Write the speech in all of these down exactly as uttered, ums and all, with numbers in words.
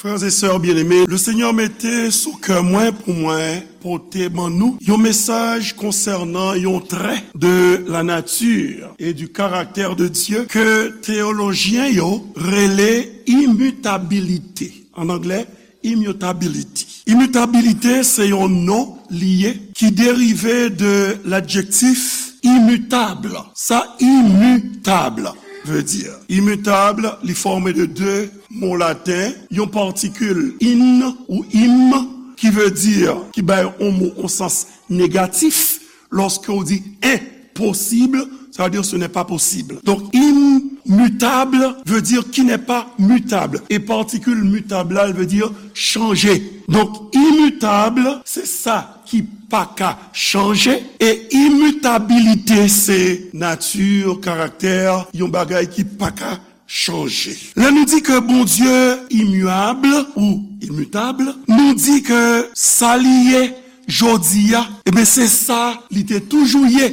Frères et sœurs bien-aimés, le Seigneur mete sou kè mwen pou mwen pote ban nou yon mesaj konsènan yon trè de la nature et du caractère de Dieu ke teyolojyen yo rele imitabilite. An anglè, immutability. Imitabilite se yon non li ye ki derive de ladjektif imitable. Sa imitable vle di. Imitable, li fòme de de mo laten, yon patikil in ou im, ki vle di, ki bay yon mo yon sans negatif, lòske w di enposib, sa vle di ce n'est pas possible. Donk, imitable vle di qui n'est pas mutable. E patikil mutable la, l vle di chanje. Donk, imitable, se sa ki pa ka chanje. E imitabilite, se nati, karaktè, yon bagay ki pa ka chanje. Lè nou di ke Bondye imyab ou imitab, nou di ke sa li ye jodi a, ebyen, se sa li te toujou ye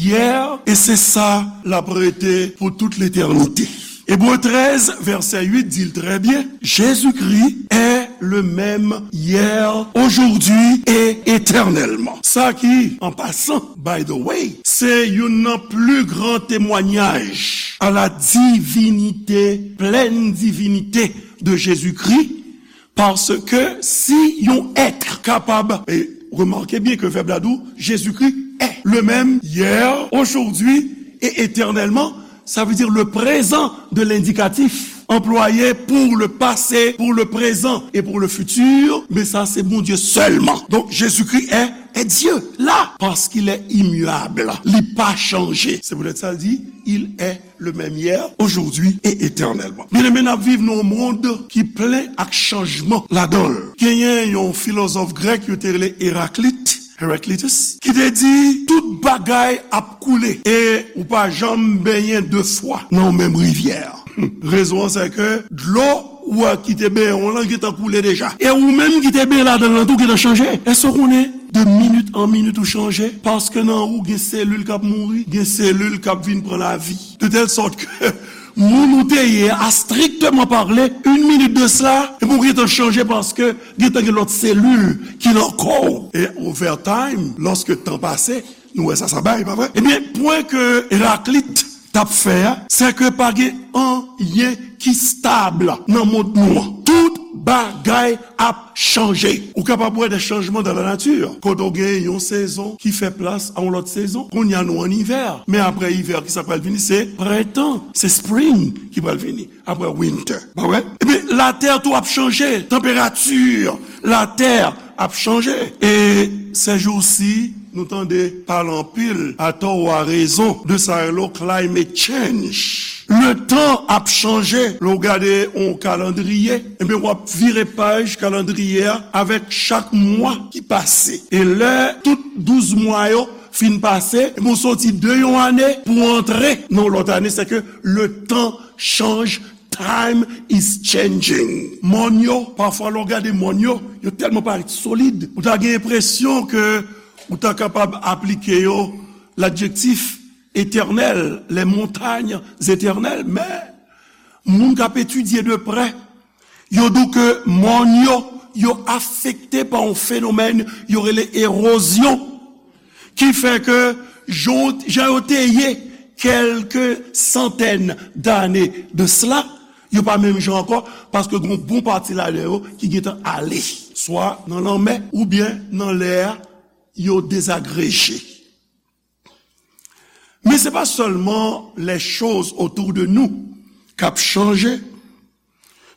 yè, e se sa l ap rete pou tout letènite. Ebre trèz, vèsè uit di l trè byen, Jésus-Christ est le même hier, aujourd'hui et éternellement. Sa ki, an pasan, by the way, se youn nan pli gran temwayaj a la divinite, plèn divinite de Jésus-Christ, paske si yon èt kapab, e remake byen ke vèb la di w, Jésus-Christ est le même hier, aujourd'hui et éternellement, sa vle di le présent de l'indicatif employé pour le passé, pour le présent et pour le futur, men sa se Bondye sèlman. Donk, Jésus-Christ est, est Dieu, là, parce qu'il est immuable. Li pa chanje. Se poutèt sa l di, il est le même hier, aujourd'hui et éternellement. Byeneme, n ap viv nan yon mond ki plen ak chanjman ladan l. Genyen yon filozòf grèk yo te rele Eraklit, Heraclitus, ki te di, tout bagay ap koule e ou pa janm benyen de fwa nan yon menm rivyè. Rezon an, se ke dlo ou a ki te benyen w lan gentan koule deja. E ou menm ki te benyen ladan l lan tou gentan chanje. Èske w konnen de minit an minit ou chanje? Paske nan ou gen selil k ap mouri, gen selil k ap vin pran lavi. De tèl sòt ke moun ou te ye a, strikteman pale, une minute de cela, e pou gentan chanje paske gentan gen lòt selil ki nan kò w. E over time, lòske tan pase, nou wè sa sa bay, pa vre? Ebyen, pwen ke Eraklit t ap fè a, se ke pa gen anyen ki stab nan mond nou an. Tout bagay ap chanje. Ou kapab wè de chanjman dans la nature. Kote w gen yon sezon ki fè plas a yon lòt sezon. Kounye a nou an ivè. Men apre ivè, ki sa k pral vini? Se prentan. Se spring ki pral vini. Apre winter. Pa vre? Ebyen, latè tou ap chanje. Tanperati latè ap chanje. E sèjousi, nou tande pale anpil, atò ou arezon, de sa yo rele climate change. Letan ap chanje. Lè w gade yon kalandriye, ebyen, w ap vire paj kalandriye a avèk chak mwa ki pase. E lè tout douz mwa yo fin pase, ebyen, w soti de yon ane pou w antre nan yon lòt ane, se ke le temps change, time is changing. Mòn yo, pafwa lè w gade mòn yo, yo tèlman parèt solid, ou ta gen enpresyon ke ou ta kapab aplike yo ladjektif éternel, les montagnes éternelles, men moun k ap etidye de prè, yo di w ke mòn yo, yo afekte pa yon fenomèn yo rele erozyon, ki fè ke jan, jan yo te ye kèlke santèn dane de sela, yo pa menm jan ankò, paske gen yon bon pati ladan yo ki gentan ale, swa nan lanmè oubyen nan lè a, yo dezagreje. Men se pa sèlman les choses autour de nous k ap chanje,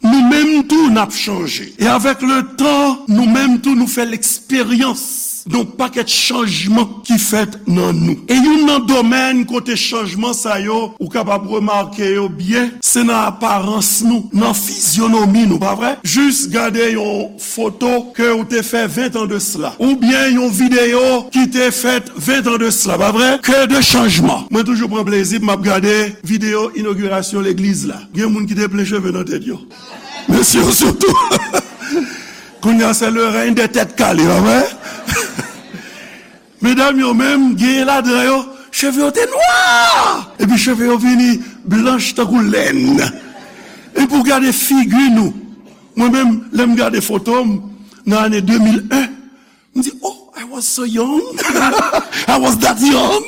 nou menm tou n ap chanje. E avèk le tan, nou menm tou nou fè leksperyans yon pakèt chanjman ki fèt nan nou. E youn nan domèn kote chanjman sa yo, ou kapab remake yo byen, se nan aparans nou, nan fizyonomi nou, pa vre? Jis gade yon foto ke ou te fè ven tan de sela, oubyen yon videyo ki te fèt ven tan de sela, pa vre? Que de chanjman! Mwen toujou pran plezi pou m ap gade videyo inogirasyon legliz la. Gen moun ki te plen cheve nan tèt yo. Mesye yo sitou. Kounye a, se le règne des têtes calées, pa vre? Medam yo menm, genyen ladan yo, cheve yo te nwa! Epi cheve yo vini blanch tankou lèn. Epi w gade figi nou. Mwen menm, lè m gade foto m nan ane de mil en, m di, "Oh, I was so young." I was that young.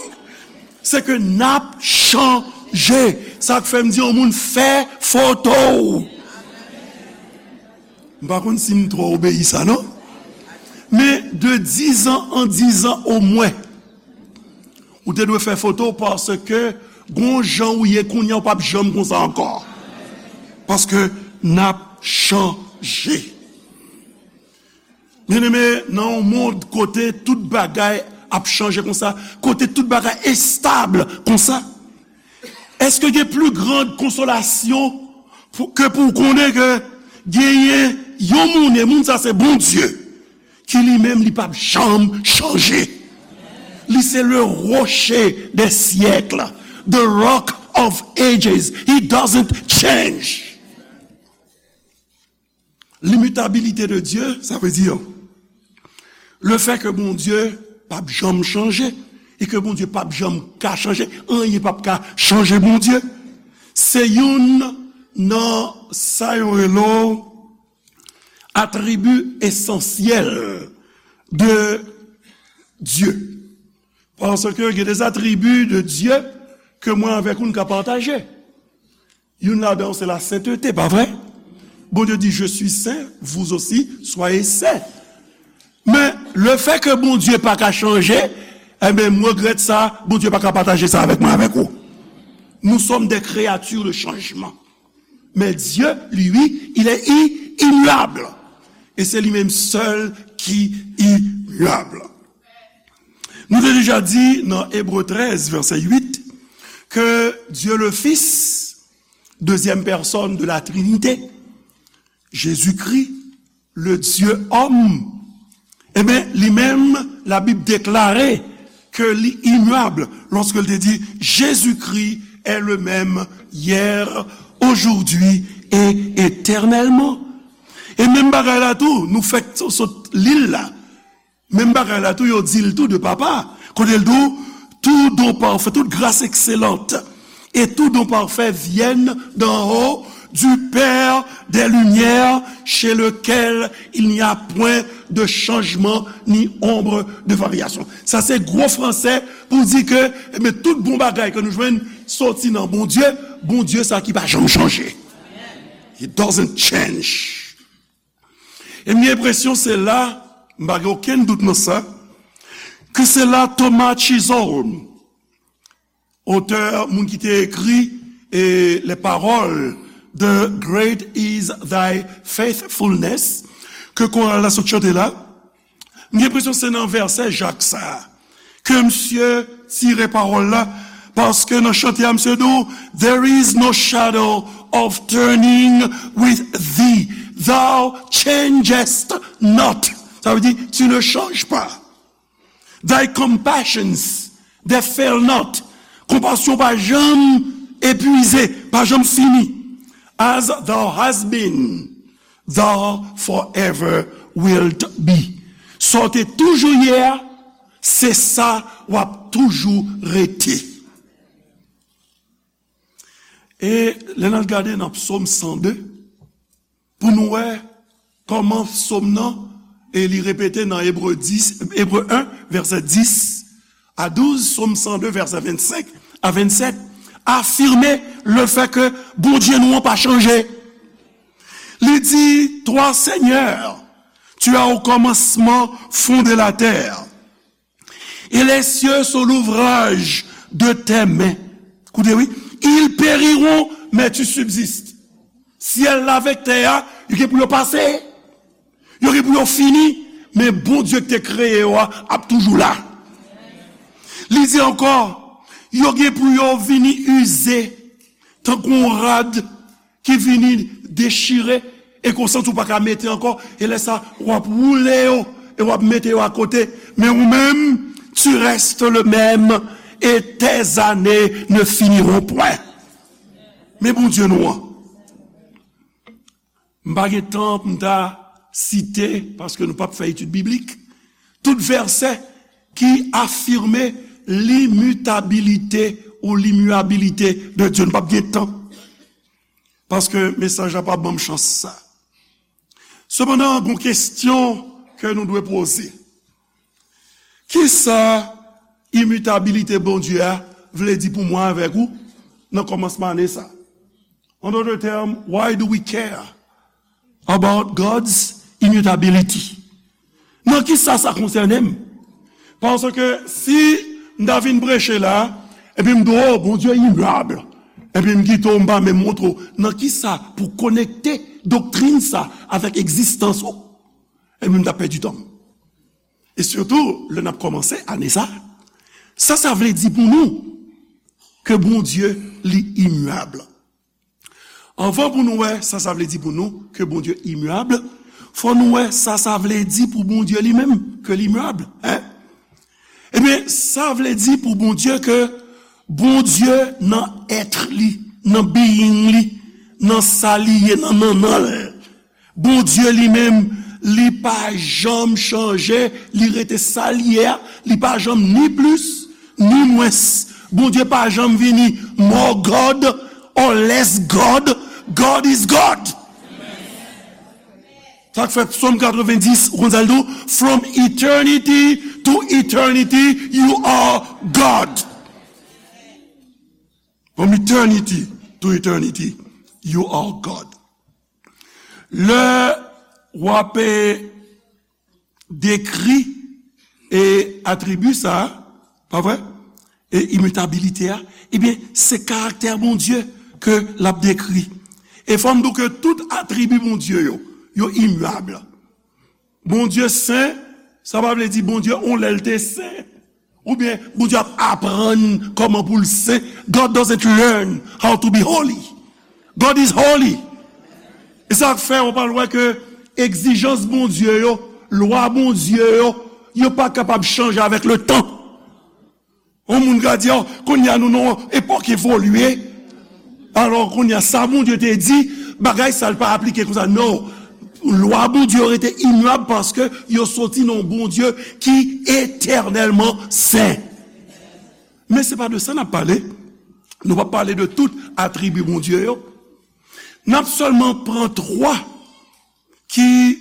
Se ke n ap chanje. Sa k fè m di yon moun fè foto w. M pa konn si m twò obeyi sa, non. Men de dizan an dizan omwen, ou te dwe fè foto w paske gon jan ou ye kounye a, ou p ap janm konsa ankò. Paske n ap chanje. Byeneme, nan yon mond kote tout bagay ap chanje konsa, kote tout bagay estab konsa, èske gen pli grand konsolasyon pou, ke pou w konnen ke genyen yon moun, e moun sa se Bondye, ki li menm li p ap janm chanje? Li se le rocher des siècles, the rock of ages. He doesn't change. L'immuabilité de Dieu, sa vle di, le fè ke Bondye p ap janm chanje, e ke Bondye p ap janm ka chanje, anyen p ap ka chanje Bondye. Se youn nan sa yo rele atribi esansyèl de Dye. Paske gen de atribi de Dye ke mwen avèk ou n ka pataje. Youn ladan yo se la senteté, pa vre? Bondye di, "Je suis saint, vous aussi, soyez saints." Men, le fè ke Bondye pa ka chanje, enben, m regrèt sa, Bondye pa ka pataje sa avèk mwen, avèk ou. Nous sommes des créatures de changement. Mais Dieu, lui, il est i-, immuable. E se li menm sèl ki immuable. Nou te deja di nan Ebre trèz, vèsè uit, ke Dieu le Fils, deuxième personne de la Trinité, Jésus-Christ, le Dieu homme, enben, li menm, Labib deklare ke li immuable lorsque il te dit, "Jésus-Christ est le même hier, aujourd'hui et éternellement." E menm bagay la tou, nou fèk sot li l la. Menm bagay la tou, yo di l tou de papa. Kote l di w, "Tout don parfait, toute grâce excellente et tout don parfait viennent d'en haut, du Père des lumières, chez lequel il n'y a point de changement ni ombre de variation." Sa se gwo fransè pou di ke, ebyen, tout bon bagay ke nou jwenn soti nan Bondye, Bondye sa ki pa janm chanje. He doesn't change. E m gen enpresyon se la, m pa gen okenn dout nan sa, ke se la Thomas Chisholm, otè, moun ki te ekri, e, les paroles de Great is Thy Faithfulness, ke koral la sot chante la, m gen enpresyon se nan vèsè Jak sa a ke misye tire pawòl la, paske nan chante a, misye di w, "There is no shadow of turning with thee. Thou changest not." Sa vle di, "Tu ne changes pas. Thy compassions, they fail not." Konpasyon pa janm epwize, pa janm fini. "As thou hast been, thou forever wilt be." Sa w te toujou ye a, se sa w ap toujou rete. E lè n al gade nan Psaume cent deux, pou nou wè kòman Psaume nan, e li repete nan Ebre dis, Ebre un, vèsè dis a douz, Psaume cent deux, vèsè vennsenk a vennsèt, afime le fè ke Bondye nou an pa chanje. Li di, "Toi, Seigneur, tu as au commencement fondé la terre, et les cieux sont l'ouvrage de tes mains." Koute, wi. "Ils périront, mais tu subsistes." Syèl la avèk tè a, yo gen pou yo pase. Yo gen pou yo fini, men Bondye ki te kreye yo a ap toujou la. Li di ankò, yo gen pou yo vini ize, tankou yon rad ki vini dechire, e ke w santi w pa ka mete ankò, e lè sa, w ap woule yo, e w ap mete yo akote, men ou menm, tu restes le même, et tes années ne finiront point. Men Bondye nou an. M pa gen tan pou m ta site, paske nou p ap fè etid biblik, tout vèsè ki afime limitabilite ou limiyabilite de Dye. Nou p ap gen tan. Paske mesaj la pa ban m chans sa. Sepandan, gon kesyon ke nou dwe poze. Kisa imitabilite Bondye a vle di pou mwen avèk ou nan kòmansman ane sa? An dòt tèm, why do we care about God's immutability? Nan kisa sa konsène m? Paske si m ta vin preche la, epi m di w, "Oh, Bondye imyab," epi m kite w, m pa menm montre w nan kisa pou konekte doktrin sa avèk egzistans ou, epi m t ap pèdi tan m. E sitou, lè n ap kòmanse ane sa, sa sa vle di pou nou ke Bondye li imyab? Anvan pou nou wè sa sa vle di pou nou ke Bondye imyab, fò nou wè sa sa vle di pou Bondye li menm ke li imyab, en? Ebyen, sa vle di pou Bondye ke Bondye nan èt li, nan being li, nan sa li ye, nan nannan l, Bondye li menm, li pa janm chanje, li rete sa l ye a, li pa janm ni plis, ni mwens. Bondye pa janm vini more God or less God. God is God. Sa k fè Sòm katrevenndis, ou konn sa l di w? "From eternity to eternity, you are God." From eternity to eternity, you are God. Lè w ap, eh, dekri, eh, atribi sa a, pa vre? E imitabilite a, ebyen, se karaktè Bondye ke l ap dekri. E fò m di w ke tout atribi Bondye yo, yo imyab. Bondye sen, sa pa vle di Bondye on lè l te sen. Oubyen Bondye ap aprann kòman pou l sen. God doesn't learn how to be holy. God is holy. E sa k fè w pral wè ke egzijans Bondye yo, lwa Bondye yo, yo pa kapab chanje avèk le tan. Yon moun ka di, "Oh, kounye a nou nan yon epòk evolye." Alò, kounye a, sa Bondye te di, bagay sa l pa aplike konsa. Non. Lwa Bondye yo rete imyab paske yo soti nan yon Bondye ki etènèlman sen. Men se pa de sa n ap pale. Nou p ap pale de tout atribi Bondye yo. N ap sèlman pran twa ki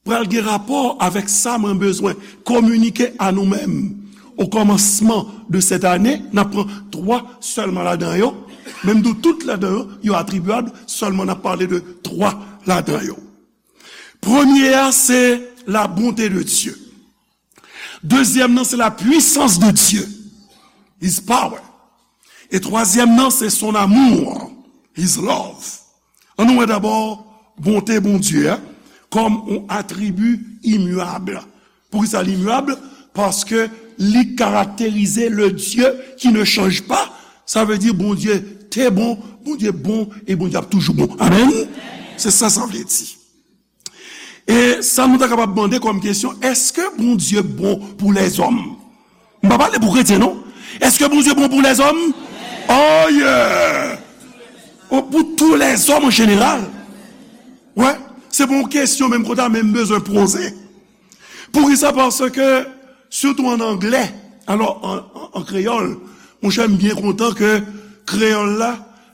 pral gen rapò avèk sa mwen bezwen kominike a nou menm. O kòmansman de sèt ane, n ap pran twa sèlman ladan yo. Menm di w tout ladan yo, yo atribiyab, sèlman n ap pale de twa ladan yo. Premye a, se la bonté de Dieu. Dezyèm nan, se la puissance de Dieu, his power. E twazyèm nan, se son amour, his love. An nou wè dabò bonte Bondye a kòm yon atribi imyab. Poukisa li imyab? Paske li karakterize le Dieu qui ne change pas. Sa vle di Bondye te bon, Bondye bon, e Bondye ap toujou bon. Amèn? Se sa sa vle di. E sa nou ta kapab mande kòm kesyon, èske Bondye bon pou lèzòm? M pa pale pou kretyen, non. Èske Bondye bon pou lèzòm? Oh yeah! Oh, pou tou lèzòm an jeneral. Wè, se pa yon kesyon menm kote a, men m bezwen poze. Poukisa? Paske, sitou an anglè, alò, an, an, an kreyòl, monchè, m byen kontan ke kreyòl la,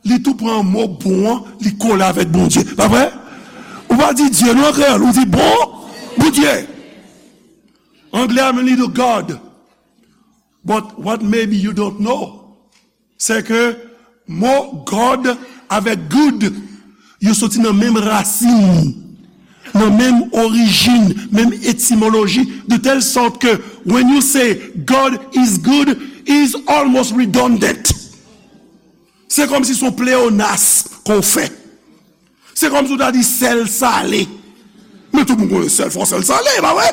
li tou pran mo bon an, li kole avèk Bondye. Pa vre? Ou pa di Dye non an kreyòl, ou di bon, Bondye. Anglè a menm li di God. But what maybe you don't know, se ke mo God avèk good, yo soti nan menm rasin, nan menm orijin, menm etimoloji, de telle sorte que when you say God is good, is almost redundant. Se kòmsi se yon pleonas ke w fè. Se kòmsi w ta di sèl sale. Men tout moun konnen sèl, fò sèl sale, pa vre?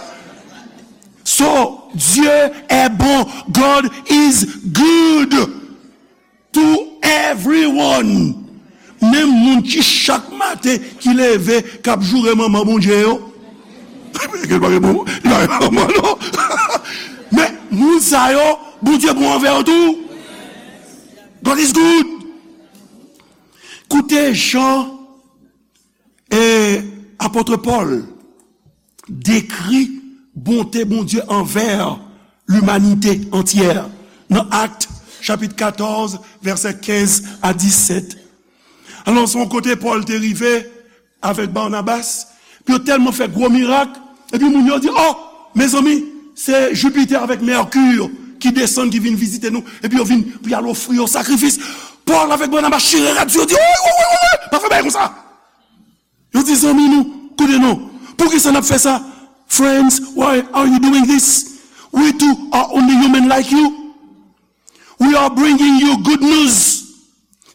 So, Dieu est bon. God is good to everyone. Menm moun ki chak maten ki leve, k ap joure manman Bondye yo. Li pa gen bon, li pa gen manman, non. Men moun sa yo, Bondye bon anvè yo tou. God is good. Koute jan, e, apot Pòl dekri bonte Bondye anvè limanite antyè nan Ak, chapit katòz, vèsè kenz a disèt. Alò, se yon kote Pòl te rive avèk Banabas, Yo tèlman fè gwo mirak, epi moun yo di, "Oh, mezanmi, se Jupiter avèk Mercure ki desann, ki vin vizite nou," epi yo vin pou y al ofri yo sakrifis. Pòl avèk Banabas chire rad sou yo, di, "Woy, woy, woy, woy, woy, pa fè bagay konsa." Yo di, "Zanmi nou, koute non, poukisa n ap fè sa?" Friends, why are you doing this? We too are only human like you. We are bringing you good news,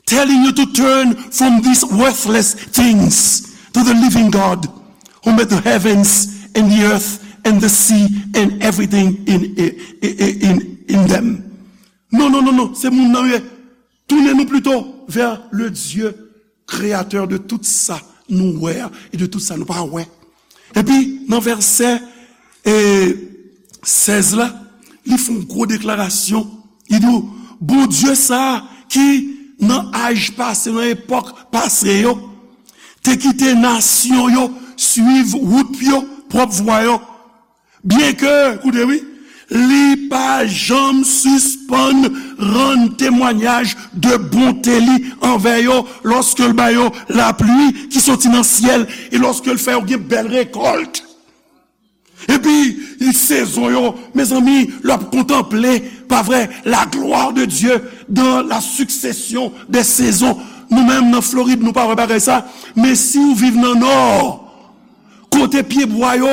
telling you to turn from these worthless things to the living God who made the heavens and the earth and the sea and everything in, in, in, in them. Non, non, non, non, se moun nan ye. Tounen nou plito vers le Dieu créateur de tout sa nou wè a e de tout sa nou pa wè. Epi, nan vèsè, e, sèz la, li fè yon gwo deklarasyon. Li di w, Bondye sa a ki nan aj pase, nan epòk pase yo, te kite nasyon yo suiv wout yo, pwòp vwa yo. Byenke, koute wi, li pa janm sispann rann temwayaj de bonte li anvè yo, lòske l ba yo lapli ki soti nan syèl, e lòske l fè yo gen bèl rekòlt. Epi, sezon yo, mezanmi, l ap kontanple, pa vre, la gloire de Dieu dans la succession des saisons. Nou menm, nan Florid, nou pa wè bagay sa, men si w viv nan Nò, kote pyebwa yo,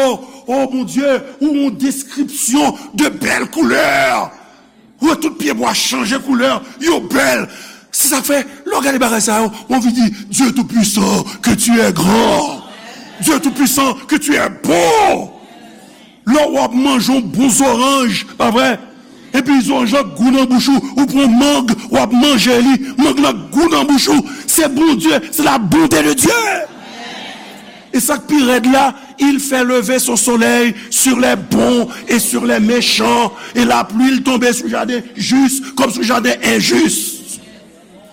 o Bondye, ou yon deskripsyon de bèl koulè. Ou wè tout pyebwa chanje koulè, yo bèl. Se sa k fè, lè w gade bagay sa yo, w anvi di, Dieu Tout-Puissant, que tu es grand. Dieu Tout-Puissant, que tu es bon. Lè w ap manje yon bon zoranj, pa vre? Epi zoranj lan gou nan bouch ou, ou pran mang, w ap manje li, mang lan gou nan bouch ou. Se Bondye, c'est la bonté de Dieu. E sa k pi rèd la, il fait lever son soleil sur les bons et sur les méchants, et la pluie tombe sur jardin juste comme sur jardin injuste.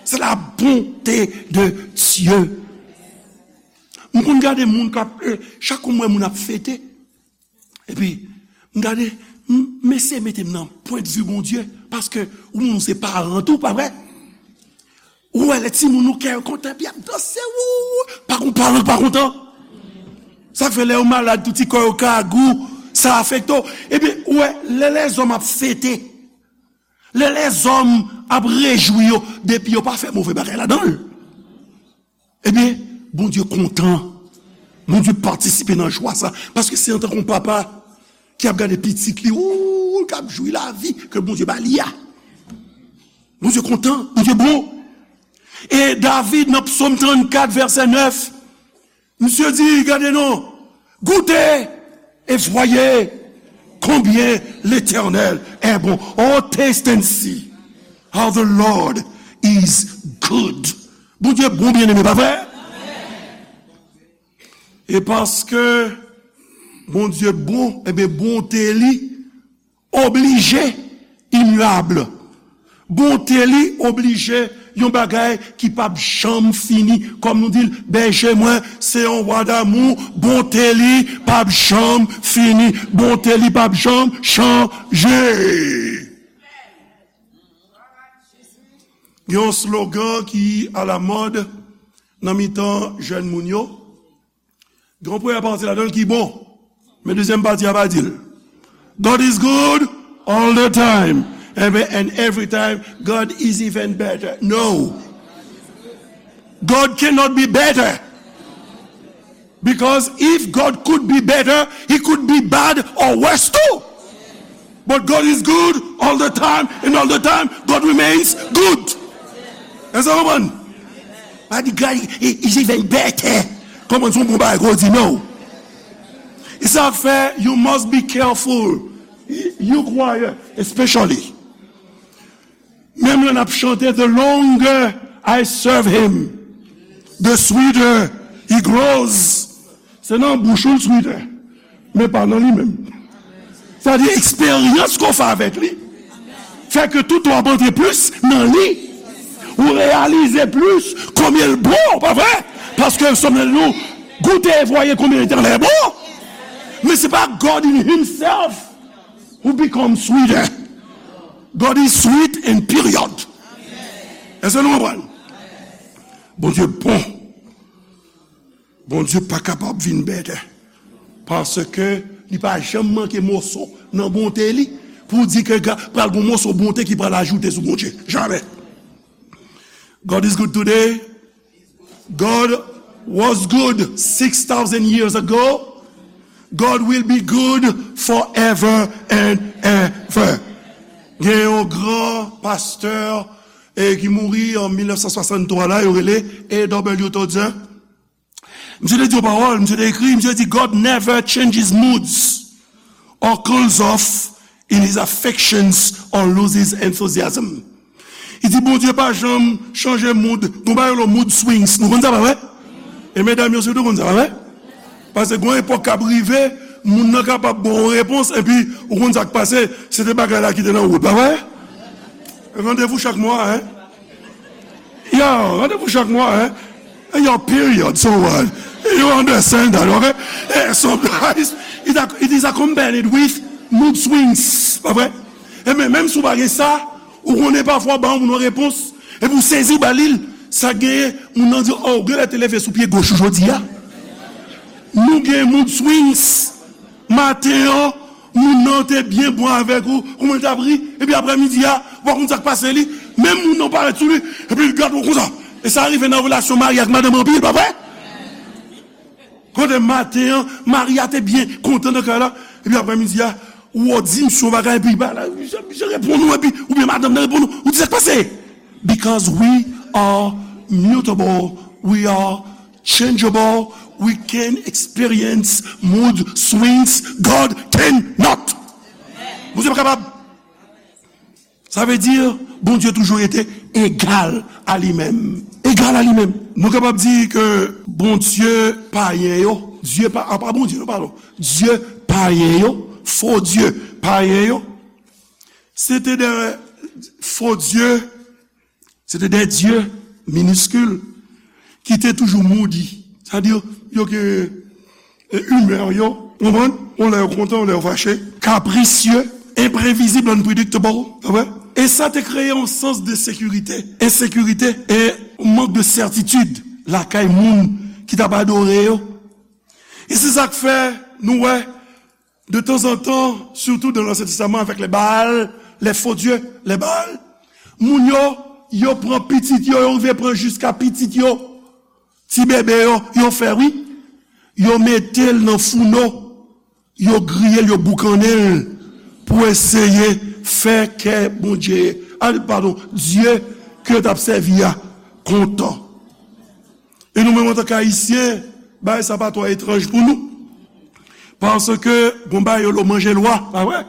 C'est la bonté de Dieu. M konn gade moun k ap, eh, chak kou m wè moun ap fete, epi m gade, m, m eseye mete m nan pwennvi Bondye, paske ou menm ou se paran tou, pa vre? Ou wè lè timoun ou kè yo kontan, epi y ap danse, wou, pa gon paran k pa kontan. Sa k fè lè yo malad, tout ti kò yo ka gou, sa afekte w. Epi, ou wè, lè lèzòm ap fete, lè lèzòm ap rejwi yo, depi yo pa fè move bagay ladan l, ebyen, Bondye kontan. Bondye patisipe nan jwa sa. Paske se antanke yon papa ki ap gade pitit li, ou, k ap jwi lavi ke Bondye ba li a. Bondye kontan, Bondye bon. E David, nan Psaume trannkat, vèsè nèf, misye di, gade non, goûtez et voyez combien l'Éternel est bon. Oh, taste and see how the Lord is good. Bondye bon, byeneme, pa vre? E paske Bondye bon, ebyen, bonte li oblije imyab. Bonte li oblije yon bagay ki p ap janm fini. Kòm nou di l, bèje mwen, se yon wa damou, bonte li p ap janm fini, bonte li p ap janm chanje. Gen yon slogan ki alamòd nan mitan jèn moun yo. Gen yon premyè pati ladan l ki bon, men dezyèm pati a pa di l. God is good all the time. And, and every time, God is even better. No. God cannot be better. Because if God could be better, he could be bad or worse too. But God is good all the time, and all the time, God remains good. Èske w konprann? Pa di God is even better. Kòman se yon bon bagay ke w di non? E sa k fè, you must be careful. You choir, especially. Menm lè n ap chante, the longer I serve him, the sweeter he grows. Se nan bouch ou l sweeter, men pa nan li menm. Sa di eksperyans ke w fè avèk li fè ke tout w ap antre plis nan li. Ou reyalize plis konbyen l bon, pa vre? Paske Sòm nan di nou, goûtez et voyez combien l'Éternel est bon. Men se pa God in himself who become sweeter. God is sweet and period. Èske nou konprann? Bondye bon. Bondye pa kapab vin better. Paske li pa janm manke moso nan bonte li pou di ke ga- pral gon moso bonte ki pral ajoute sou Bondye. Jamè. God is good today. God was good six thousand years ago. God will be good forever and ever. Gen yon gran pastè e ki mouri an mil nèf san swasanntwa la, yo rele A W Tozer. Misye te di yon pawòl, misye te ekri, misye di, God never changes moods or cools off in his affections or loses enthusiasm. Li di, Bondye pa janm chanje mood. Gon bagay yo rele mood swings. Nou konn sa, pa vre? E medam yo sitou konn sa, pa vre? Paske gon epòk k ap rive, moun nan kapab ba w yon repons, epi ou konn sa k pase, se te bagay la ki te nan wout, pa vre? Randevou chak mwa, en? Yo, randevou chak mwa, en? Yo, period, so what? You understand that, okay? Eh, sometimes it, ac- it is accompanied with mood swings, pa vre? E men, menm si w pa gen sa, ou konnen pafwa w ba yon moun yon repons, epi w sezi w ba li l, sa genyen, moun nan di, oh, ou genlè te leve sou pye goch ou jodi a. Nou gen mood swings. Maten an, moun nan te byen bon avèk ou, kouman l t ap ri, epi aprè midi a, ou pa konn sa k pase li, menm moun nan parèt sou li, epi l gade w konsa. E sa rive nan relasyon mari ak madanm anpil, pa vre? Kote maten an, mari a te byen kontan nan kay la, epi aprè midi a, ou di misye yon bagay, epi ba la, misye, misye reponn ou, epi, oubyen madanm nan reponn ou, ou di sa k pase? Because we are mutable, we are changeable, we can experience mood swings. God cannot. Bondye pa kapab. Sa vle di, Bondye toujou rete egal a li menm. Egal a li menm. Nou kapab di ke Bondye payen yo, Dye pa, apa Bondye, nou padon. Dye payen yo, fo dye payen yo, se te de fo dye Se te de dye miniskil ki te toujou moody. Sa di, yo gen, e, imè yo, konprann? Yon lè yo kontan, yon lè yo fache. Capricieux, imprevisible, unpredictable. Ou wè? E sa te kreye yon sans de sekirite, ensekirite e mank de sètitid lakay moun ki t ap adore yo. E se sa k fè nou wè de tanzantan, sitou nan Ansyen Testaman avèk lè Baal, lè fo dye, lè Baal, moun yo, yo pran pitit yo, yo rive pran jiska pitit yo, ti bebe yo, yo fè wi, yo mete l nan founo, yo griye l, yo boukannen l pou eseye fè kè Bondye, a, padon, Dye ke yo t ap sèvi a kontan. E nou menm antanke Ayisyen, bagay sa pa twò etranj pou nou. Paske gon bagay yo lo manje lwa, pa vre?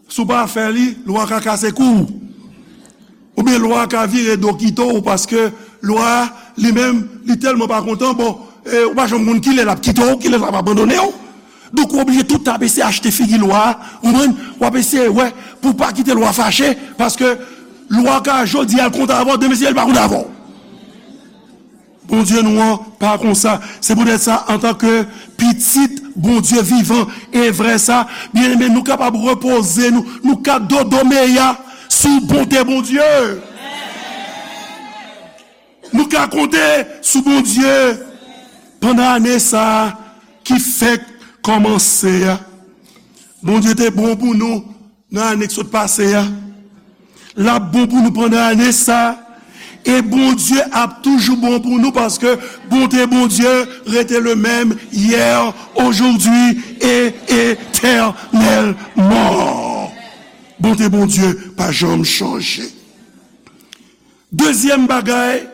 Si w pa fè li, lwa ka kase kou w. Oubyen lwa ka vire do kite w paske lwa li menm, li tèlman pa kontan, bon, e, ou pa janm konn kilè l ap kite w, kilè l ap abandone w. Donk, ou oblije tout tan ap eseye achte figi lwa a, ou konprann? W ap eseye wè pou w pa kite lwa fache, paske lwa ka jodi a l kontan avè w, demen si l pa kontan avè w. Bondye nou an pa konsa. Se poutèt sa, antanke pitit Bondye vivan e vrè sa, byeneme, nou kapab repoze nou, nou ka dodomeya sou bonte Bondye. Nou ka konte sou Bondye pandan ane sa a ki fèk kòmanse a. Bondye te bon pou nou nan ane k sot pase a. L ap bon pou nou pandan ane sa a. E Bondye ap toujou bon pou nou paske bonte Bondye rete le menm yè, ojodwi e etènèlman. Bonte Bondye pa janm chanje. Dezyèm bagay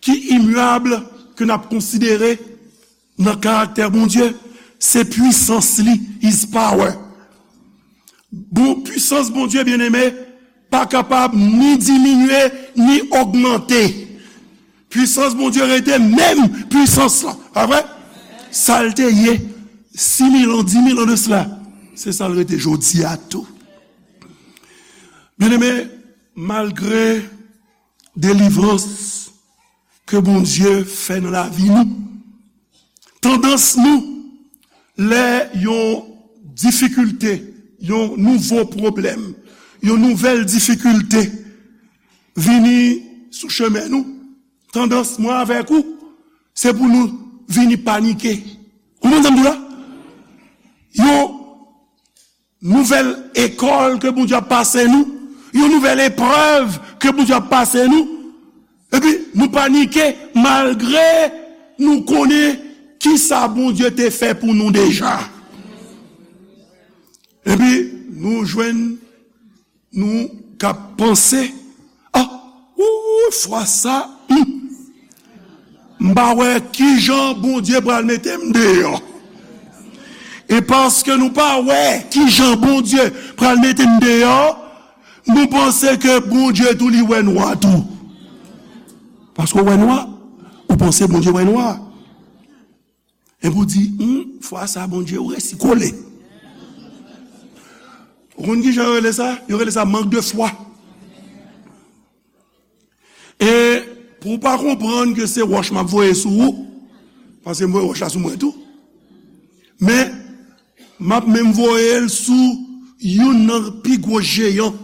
ki imyab ke n ap konsidere nan karaktè Bondye, se pwisans li, his power. Bon, pwisans Bondye, byeneme, pa kapab ni diminye, ni ogmante. Pwisans Bondye rete menm pwisans lan, pa vre? Sa l te ye sis mil an, dis mil an de sila, se sa l rete jodi a tou. Byeneme, malgre delivrans ke Bondye fè nan lavi nou, tandans nou, lè yon difikilte, yon nouvo pwoblèm, yon nouvèl difikilte vini sou chemen nou, tandans mwen avèk ou, se pou nou vini panike. Ou konprann sa m di w la? nouvèl ekòl ke Bondye ap pase nou, yon nouvèl eprèv ke Bondye ap pase nou, epi nou panike malgre nou konnen kisa Bondye te fè pou nou deja. Epi nou jwenn nou k ap panse, ah, ou, fwa sa, hmm, m pa wè kijan Bondye pral mete m deyò. E paske nou pa wè kijan Bondye pral mete n deyò, nou panse ke Bondye tou li wè nwa tou. Paske w wè nwa, ou panse Bondye wè nwa. Epi w di, hmm, fwa sa Bondye, ou resi kole. Ou konn kijan yo rele sa? Yo rele sa mank de fwa. E pou w pa konprann ke se wòch m ap voye sou ou, paske m voye wòch la sou mwen tou, men m ap menm voye l sou youn nan pi gwo jeyan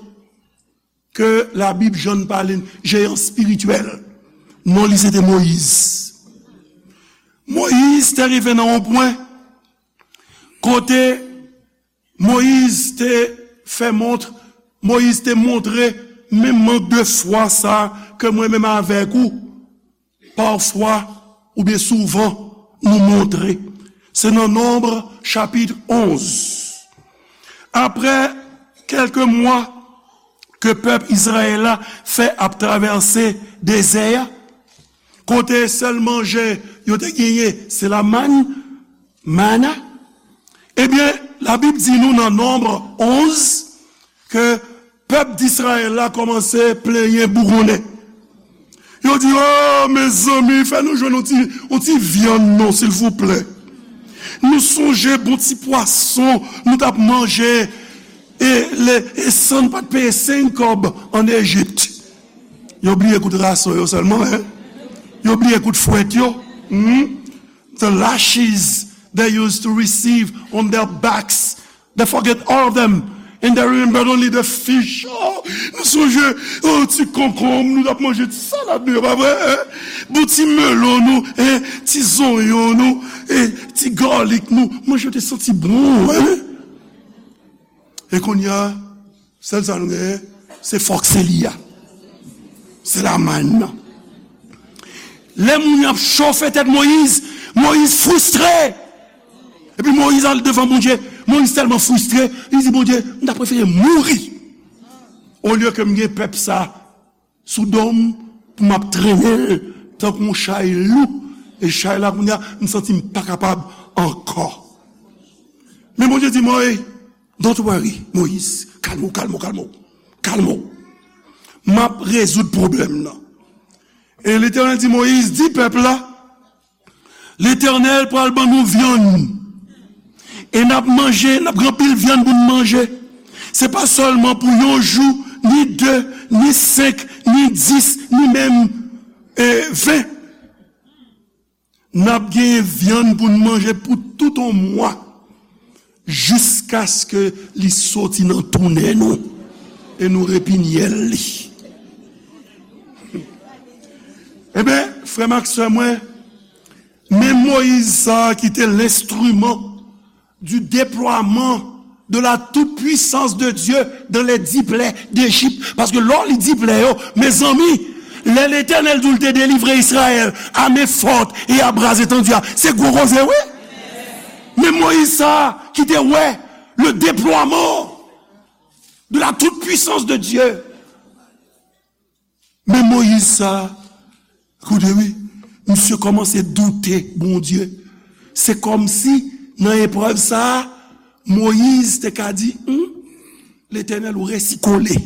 ke Labib janm pale n, jeyan espirityèl. Non li se te Moyiz. Moyiz te rive nan yon pwen kote Moyiz te fè mont, Moyiz te montre menm mank de fwa sa ke mwen menm avèk ou, pafwa oubyen souvan, nou montre. Se nan Nonb chapit onz. Apre kèlke mwa ke pèp Izrayèl la fè ap travèse dezè a, kote sèl manje yo te genyen, se la mann, manna. Ebyen, Labib di nou nan Nonb onz ke pèp Dizrayèl la kòmanse plenyen bougonnen. Yo di, o, mezanmi, fè nou jwenn yon ti, yon ti vyann non, silvouplè. Nou sonje bon ti pwason nou t ap manje, e, le, e san n pa t peye senk kòb ann Ejip. Yo bliye kout rason yo sèlman, en. Yo bliye kout fwèt yo. Hmm? The lashes they used to receive on their backs. They forget all of them. And they remember only the fish. Oh, nou sonje, oh, ti konkonm, nou t ap manje ti salad nou yo, pa vre, en? Bon ti melon nou, en? Ti zonyon nou, en? Ti galik nou. Manje yo te santi bon, en? E kounye a, sèl sa nou genyen, se fòk se li a. Se la mann nan. Lè moun yo ap chofe tèt Moyiz, Moyiz fristre. Epi Moyiz al devan Bondye. Moyiz tèlman fristre, li di, Bondye, m ta prefere mouri olye ke m gen pèp sa sou do m pou m ap trennen l tankou yon chay lou. E chay la, kounye a, m santi m pa kapab ankò. Men Bondye di, Moyiz, don't worry, Moyiz, kalme w, kalme w, kalme w. Kalme w. M ap rezoud pwoblèm nan. E Letènèl di Moyiz, di pèp la, Letènèl pral ban nou vyann. E n ap manje, n ap gen anpil vyann pou n manje. Se pa sèlman pou yon jou, ni de, ni senk, ni dis, ni menm, e, ven. N ap gen vyann pou n manje pou tout yon mwa, jiskaske li soti nan tou nen nou e nou repinyèl li. Ebyen, frè m ak sè mwen, men Moyiz sa a ki te lenstriman du déploiement de la toute-puissance de Dieu dans les dix plaies d'Égypte. Paske lè w li di plè yo, mezanmi, lè Letènèl di w l te delivre Izrayèl a men fòt e a bra etandi a, se gwo koze, wi. Men Moyiz sa a ki te wè le déploiement de la toute-puissance de Dieu. Men Moyiz sa a, koute wi, misye kòmanse doute Bondye. Se kòmsi nan eprèv sa a, Moyiz te ka di, hmm, Letènèl, ou resi kole.